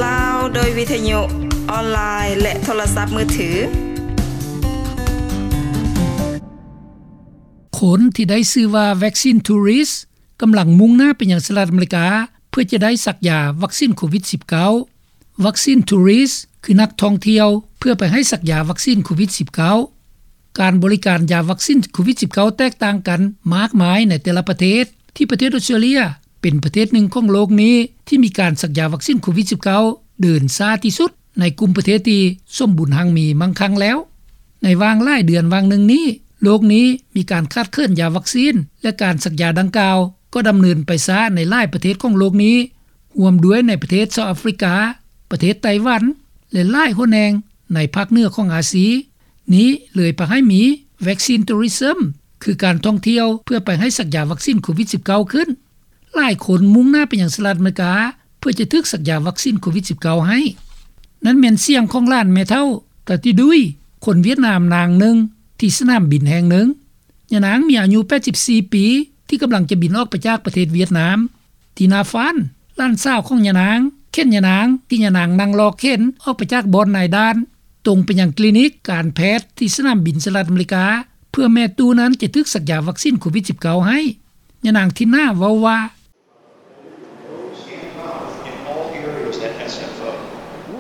ລາວ ໂດຍວິທະຍຸ ອອນລາຍ ແລະ ໂທລະສັບມືຖື. ຄົນທີ່ໄດ້ຊື່ວ່າ Vaccine Tourist ກຳລັງມຸ່ງໜ້າໄປຍັງສະຫະລັດອາເມລິກາ ເພື່ອຈະໄດ້ສັກຢາວັກຊີນໂຄວິດ-19. Vaccine Tourist ຄືນັກທ່ອງທ່ຽວເພື່ອໄປໃຫ້ສັກຢາວັກຊີນໂຄວິດ-19. ການບໍລິການຢາວັກຊີນໂຄວິດ-19 ແຕກຕ່າງກັນມາກມາຍໃນແຕ່ລະປະເທດ, ທີ່ປະເທດອອສເຕຣເລຍເປັນປະເທດໜຶ່ງຂອງໂລກນີ້ທີ່ມີການສັກຢາວັກຊີນໂຄວິດ-19 ເດີນຊ້າທີ່ສຸດໃນກຸ່ມປະເທດທີ່ສົມບູນຮັ່ງມີມັ່ງຄັ່ງແລ້ວ. ໃນຫວ່າງຫຼາຍເດືອນຫວ່າງໜຶ່ງນີ້, ໂລກນີ້ມີການຂາດເຂີນຢາວັກຊີນ ແລະ ການສັກຢາດັ່ງກ່າວກໍດຳເນີນໄປຊ້າໃນຫຼາຍປະເທດຂອງໂລກນີ້, ຮ່ວມດ້ວຍໃນປະເທດເຊົາອາຟຣິກາ, ປະເທດໄຕ້ຫວັນ ແລະ ຫຼາຍຫົວແຫ່ງໃນພາກເໜືອຂອງອາຊີ. ນີ້ເລີຍພາໃຫ້ມີ Vaccine Tourism ຄືການທ່ອງທ່ຽວເພື່ອໄປໃຫ້ສັກຢາວັກຊີນໂຄວິດ-19 ຂຶ້ນ. ຫຼາຍຄົນມຸ່ງໜ້າໄປຍັງສະຫະລັດອາເມລິກາ ເພື່ອຈະຖືກສັກຢາວັກຊີນໂຄວິດ-19 ໃຫ້. ນັ້ນແມ່ນສຽງຂອງຫຼານແມ່ເຖົ້າ ຕາຕິດຸຍ ຄົນຫວຽດນາມນາງໜຶ່ງທີ່ສະໜາມບິນແຫ່ງໜຶ່ງ. ຍານາງມີອາຍຸ 84 ປີ ທີ່ກຳລັງຈະບິນອອກໄປຈາກປະເທດຫວຽດນາມ. ທີນາຟານ ຫຼານສາວຂອງຍານາງ ເຂັນຍານາງ ທີ່ຍານາງນັ່ງລໍເຂັນອອກໄປຈາກບ່ອນນາຍດ່ານ ຕົງໄປຍັງຄລີນິກການແພດທີ່ສະໜາມບິນສະຫະລັດອາເມລິກາ ເພື່ອແມ່ຕູ້ນັ້ນຈະຖືກສັກຢາວັກຊີນໂຄວິດ-19 ໃຫ້. ຍານາງທິນນາເວົ້າວ່າ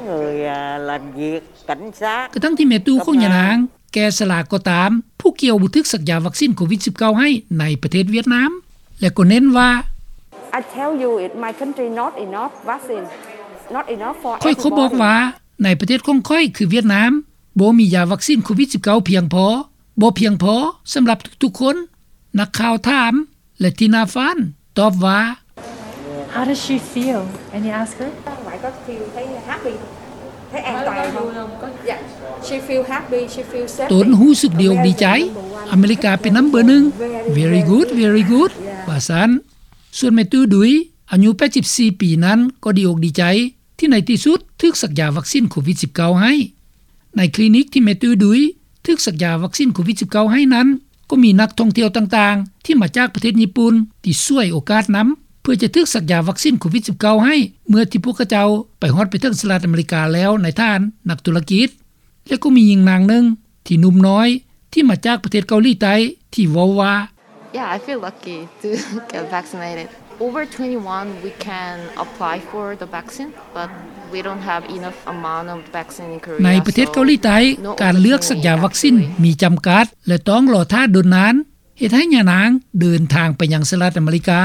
Người, à, làm việc cảnh sát. ກະທັງທີ່ແມ່ຕູ້ຂອງຍານາງແກ່ຊະລາກໍຕາມ, ຜູ້ກ່ຽວບໍ່ຖືກສັກຢາວັກຊີນໂຄວິດ-19 ໃຫ້ໃນປະເທດຫວຽດນາມ ແລະ ກໍເນັ້ນວ່າ I tell you, it, my country not enough vaccine, not enough for everybody. ຂ້ອຍກໍບອກວ່າ ໃນປະເທດຂອງຂ້ອຍຄືຫວຽດນາມ ບໍ່ມີຢາວັກຊີນໂຄວິດ-19 ພຽງພໍ, ບໍ່ພຽງພໍສຳລັບທຸກໆຄົນ. ນັກຂ່າວຖາມ ແລະ ທີນາຟານຕອບວ່າ How does she feel? And you ask her? Like, có feel thấy happy, thấy an toàn không? Yeah, she feel happy, she feel safety. ຕົນຮູ້ສຶກດີອົກດີໃຈ. ອາເມລິກາເປັນນຳເບີໜຶ່ງ. Very good, very good. ວ່າຊັ້ນ. ສ່ວນແມ່ຕູ້ດຸຍ ອາຍຸ 84 ປີນັ້ນ ກໍດີອົກດີໃຈ ທີ່ໃນທີ່ສຸດຖືກສັກຢາວັກຊີນໂຄວິດ-19 ໃຫ້. ໃນຄລີນິກທີ່ແມ່ຕູ້ດຸຍຖືກສັກຢາວັກຊີນໂຄວິດ-19 ໃຫ້ນັ້ນ ກໍມີນັກທ່ອງທ່ຽວຕ່າງໆ ທີ່ມາຈາກປະເທດຍີ່ປຸ່ນ ທີ່ສວຍໂອກາດນຳ ເພື່ອຈະຖືກສັກຢາວັກຊີນໂຄວິດ-19 ໃຫ້ ເມື່ອທີ່ພວກເຂົາເຈົ້າໄປຮອດໄປເຖິງສະຫະລັດອາເມລິກາແລ້ວໃນຖານະນັກທຸລະກິດ. ແລະ ກໍມີຍິງນາງໜຶ່ງທີ່ໜຸ່ມນ້ອຍ ທີ່ມາຈາກປະເທດເກົາຫຼີໃຕ້ ທີ່ເວົ້າວ່າ Yeah, I feel lucky to get vaccinated. Over twenty-one, we can apply for the vaccine, but we don't have enough amount of vaccine in Korea. ໃນປະເທດເກົາຫຼີໃຕ້ ການເລືອກສັກຢາວັກຊີນມີຈຳກັດ ແລະ ຕ້ອງລໍຖ້າດົນນານ, ເຮັດໃຫ້ຍານາງເດີນທາງໄປຍັງສະຫະລັດອາເມລິກາ.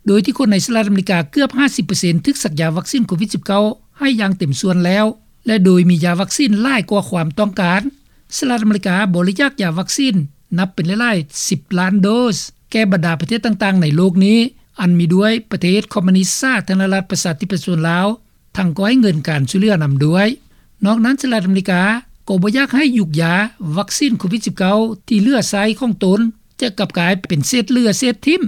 ໂດຍທີ່ຄົນໃນສະຫະລັດອາເມລິກາເກືອບ 50% ຖືກສັກຢາວັກຊີນໂຄວິດ-19 ໃຫ້ຢ່າງເຕັມສ່ວນແລ້ວ ແລະ ໂດຍມີຢາວັກຊີນຫຼາຍກວ່າຄວາມຕ້ອງການ. ສະຫະລັດອາເມລິກາບໍລິຈາກຢາວັກຊີນນັບເປັນຫຼາຍໆສິບລ້ານໂດສ ແກ່ບັນດາປະເທດຕ່າງໆໃນໂລກນີ້ ອັນມີດ້ວຍປະເທດຄອມມູນິດສາທາລະນະລັດປະຊາທິປະຊາຊົນລາວ, ທັງກໍໃຫ້ເງິນການຊ່ວຍເຫຼືອນຳດ້ວຍ. ນອກນັ້ນ ສະຫະລັດອາເມລິກາກໍບໍ່ຢາກໃຫ້ຢຸກຢາວັກຊີນໂຄວິດ-19 ທີ່ເຫຼືອໃຊ້ຂອງຕົນ ຈະກັບກາຍເປັນເສດເຫຼືອເສດຖິ້ມ.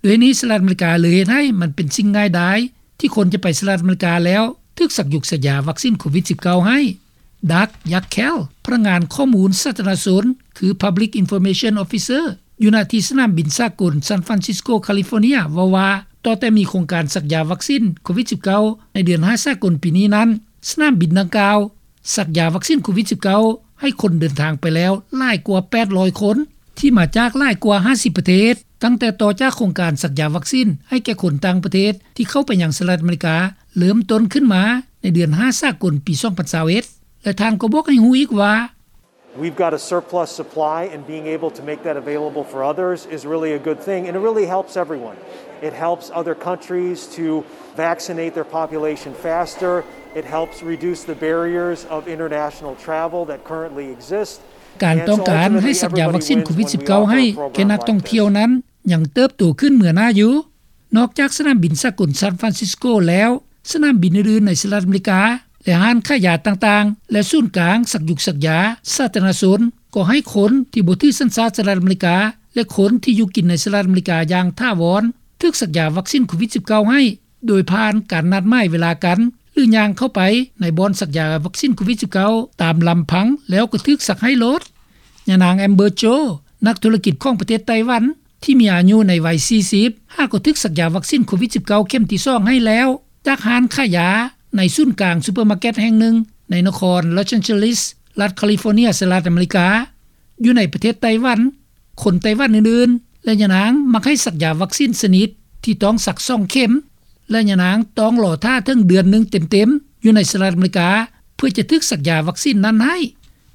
ດ້ວຍນີ້ ສະຫະລັດອາເມລິກາເລີຍເຮັດໃຫ້ມັນເປັນສິ່ງງ່າຍດາຍ ທີ່ຄົນຈະໄປສະຫະລັດອາເມລິກາແລ້ວຖືກສັກຢຸກສັກຢາວັກຊີນໂຄວິດ-19 ໃຫ້. ດັກ ຍັກແຄລ ພະນັກງານຂໍ້ມູນສາທາລະນະຊົນ ຄື Public Information Officer ຢູ່ນະທີ່ສະໜາມບິນສາກົນ San Francisco California ເວົ້າວ່າ ຕໍ່ແຕ່ມີໂຄງການສັກຢາວັກຊີນໂຄວິດ-19 ໃນເດືອນຫ້າສາກົນປີນີ້ນັ້ນ, ສະໜາມບິນດັ່ງກ່າວ ສັກຢາວັກຊີນໂຄວິດ-19 ໃຫ້ຄົນເດີນທາງໄປແລ້ວຫຼາຍກວ່າ ແປດຮ້ອຍຄົນ ທີ່ມາຈາກຫຼາຍກວ່າ ຫ້າສິບປະເທດ, ຕັ້ງແຕ່ຕໍ່ຈາກໂຄງການສັກຢາວັກຊີນໃຫ້ແກ່ຄົນຕ່າງປະເທດທີ່ເຂົ້າໄປຍັງສະຫະລັດອາເມລິກາເລີ່ມຕົ້ນຂຶ້ນມາໃນເດືອນຫ້າສາກົນປີສອງພັນຊາວເອັດ ແລະ ທ່ານກໍບອກໃຫ້ຮູ້ອີກວ່າ We've got a surplus supply, and being able to make that available for others is really a good thing, and it really helps everyone. It helps other countries to vaccinate their population faster. It helps reduce the barriers of international travel that currently exist. ການຕ້ອງການໃຫ້ສັກຢາວັກຊີນໂຄວິດ-19 ໃຫ້ແກ່ນັກທ່ອງທ່ຽວນັ້ນຍັງເຕີບໂຕຂຶ້ນເມືອໜ້າຢູ່. ນອກຈາກສະໜາມບິນສາກົນ San Francisco ແລ້ວ, ສະໜາມບິນອື່ນໆໃນສະຫະລັດອາເມລິກາ ແລະ ຮ້ານຂາຍຢາຕ່າງໆ ແລະ ສູນກາງສັກຢຸກສັກຢາສາທາລະນະຊົນ ກໍໃຫ້ຄົນທີ່ບໍ່ຖືສັນຊາດສະຫະລັດອາເມລິກາ ແລະ ຄົນທີ່ຢູ່ກິນໃນສະຫະລັດອາເມລິກາຢ່າງຖາວອນ ຖືກສັກຢາວັກຊີນໂຄວິດ-19 ໃຫ້ ໂດຍຜ່ານການນັດໝາຍເວລາກັນ ຫຼື ຍ່າງເຂົ້າໄປໃນບ່ອນສັກຢາວັກຊີນໂຄວິດ-19 ຕາມລຳພັງ ແລ້ວກໍຖືກສັກໃຫ້ໂລດ. ຍານາງ Amber Cho ນັກທຸລະກິດຂອງປະເທດໄຕ້ຫວັນ ທີ່ມີອາຍຸໃນໄວສີ່ສິບ ຫາກໍຖືກສັກຢາວັກຊີນໂຄວິດ-19 ເຂັມທີສອງໃຫ້ແລ້ວ ຈາກຮ້ານຂາຍຢາ ໃນສູນກາງຊຸບເປີມາເກັດແຫ່ງໜຶ່ງ ໃນນະຄອນ Los Angeles ລັດ California ສະຫະລັດອາເມລິກາ. ຢູ່ໃນປະເທດໄຕ້ຫວັນ, ຄົນໄຕ້ຫວັນອື່ນໆ ແລະ ຍານາງມັກໃຫ້ສັກຢາວັກຊີນຊະນິດທີ່ຕ້ອງສັກສອງເຂັມ ແລະ ຍານາງຕ້ອງລໍຖ້າເຖິງເດືອນໜຶ່ງເຕັມໆ ຢູ່ໃນສະຫະລັດອາເມລິກາ ເພື່ອຈະຖືກສັກຢາວັກຊີນນັ້ນໃຫ້.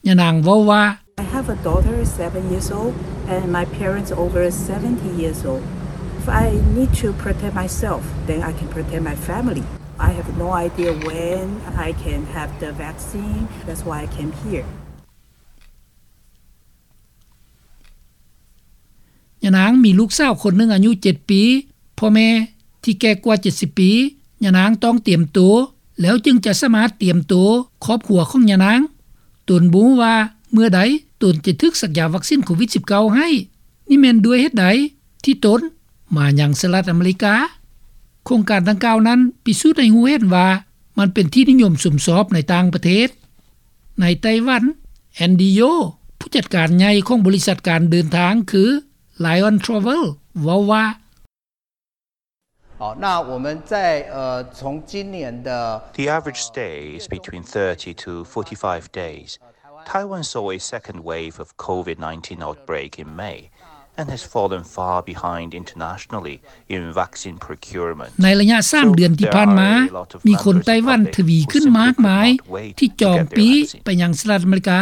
ຍານາງເວົ້າວ່າ: I have a daughter, seven years old, and my parents over seventy years old. If I need to protect myself, then I can protect my family. I have no idea when I can have the vaccine. That's why I came here. ຍານາງມີລູກສາວຄົນໜຶ່ງອາຍຸເຈັດປີ, ພໍ່ແມ່ທີ່ແກ່ກວ່າເຈັດສິບປີ. ຍານາງຕ້ອງຕຽມໂຕ ແລ້ວຈຶ່ງຈະສາມາດຕຽມໂຕຄອບຄົວຂອງຍານາງ. ຕົນບໍ່ຮູ້ວ່າເມື່ອໃດຕົນຈະຖືກສັກຢາວັກຊີນໂຄວິດສິບເກົ້າໃຫ້. ນີ້ແມ່ນດ້ວຍເຫດໃດທີ່ຕົນມາຍັງສະຫະລັດອາເມລິກາ. ໂຄງການດັ່ງກ່າວນັ້ນພິສູດໃຫ້ຮູ້ເຫັນວ່າມັນເປັນທີ່ນິຍົມຊົມຊອບໃນຕ່າງປະເທດ. ໃນໄຕ້ຫວັນ, ແອນດີໂຢ ຜູ້ຈັດການໃຫຍ່ຂອງບໍລິສັດການເດີນທາງຄື Lion Travel ເວົ້າວ່າ: 哦，那我们在，呃，从今年的 The average stay is between thirty to forty-five days. Taiwan saw a second wave of COVID nineteen outbreak in May and has fallen far behind internationally in vaccine procurement. ໃນໄລຍະສາມເດືອນທີ່ຜ່ານມາ, ມີຄົນໄຕ້ຫວັນທະວີຂຶ້ນມາກມາຍທີ່ຈອງປີ້ໄປຍັງສະຫະລັດອາເມລິກາ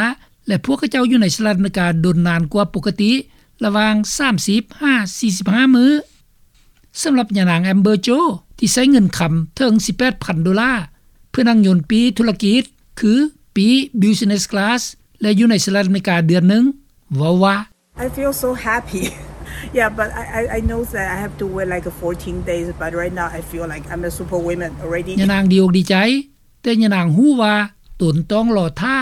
ແລະ ພວກເຂົາເຈົ້າຢູ່ໃນສະຫະລັດອາເມລິກາດົນນານກວ່າປົກກະຕິ ລະຫວ່າງສາມສິບຫາສີ່ສິບຫ້າມື້. ສຳລັບຍານາງ Amber Jo ທີ່ໃຊ້ເງິນຄຳເຖິງສິບແປດພັນໂດລາ ເພື່ອນັ່ງຍົນປີ້ທຸລະກິດ ຄືປີ້ Business Class ແລະ ຢູ່ໃນສະຫະລັດອາເມລິກາເດືອນໜຶ່ງ ເວົ້າວ່າ: I feel so happy. Yeah, but I, I, I know that I have to wait, like, fourteen days, but right now I feel like I'm a superwoman already. ຍານາງດີອົກດີໃຈ, ແຕ່ຍານາງຮູ້ວ່າຕົນຕ້ອງລໍຖ້າ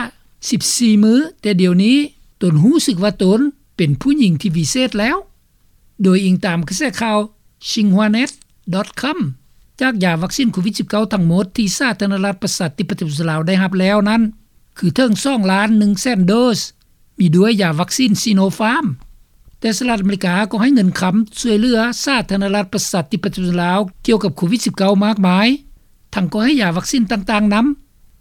ສິບສີ່ມື້, ແຕ່ດຽວນີ້ຕົນຮູ້ສຶກວ່າຕົນເປັນຜູ້ຍິງທີ່ວິເສດແລ້ວ. ໂດຍອີງຕາມກະແສຂ່າວ Xinhuanet dot com, ຈາກຢາວັກຊີນໂຄວິດສິບເກົ້າທັງໝົດທີ່ສາທາລະນະລັດປະຊາທິປະໄຕປະຊາຊົນລາວໄດ້ຮັບແລ້ວນັ້ນ ຄືເຖິງສອງລ້ານໜຶ່ງແສນໂດສ, ມີດ້ວຍຢາວັກຊີນ Sinopharm. ແຕ່ສະຫະລັດອາເມລິກາກໍໃຫ້ເງິນຄຳຊ່ວຍເຫຼືອສາທາລະນະລັດປະຊາທິປະໄຕປະຊາຊົນລາວກ່ຽວກັບໂຄວິດສິບເກົ້າມາກມາຍ, ທັງກໍໃຫ້ຢາວັກຊີນຕ່າງໆນຳ,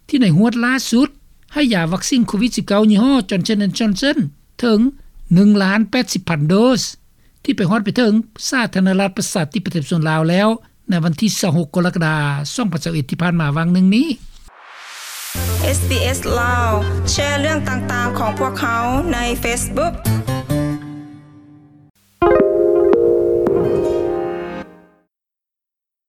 ທີ່ໃນຮວດລ່າສຸດໃຫ້ຢາວັກຊີນໂຄວິດສິບເກົ້າຍີ່ຫໍ້ Johnson and Johnson ເຖິງໜຶ່ງລ້ານແປດສິບພັນໂດສ ທີ່ໄປຮອດໄປເຖິງສາທາລະນະລັດປະຊາທິປະໄຕປະຊາຊົນລາວແລ້ວ ໃນວັນທີຊາວຫົກ ກໍລະກະດາ ສອງພັນຊາວເອັດ ທີ່ຜ່ານມາຫວ່າງໜຶ່ງນີ້. ເອສ ບີ ເອສ ລາວ ແຊເລື່ອງຕ່າງໆຂອງພວກເຮົາໃນ Facebook.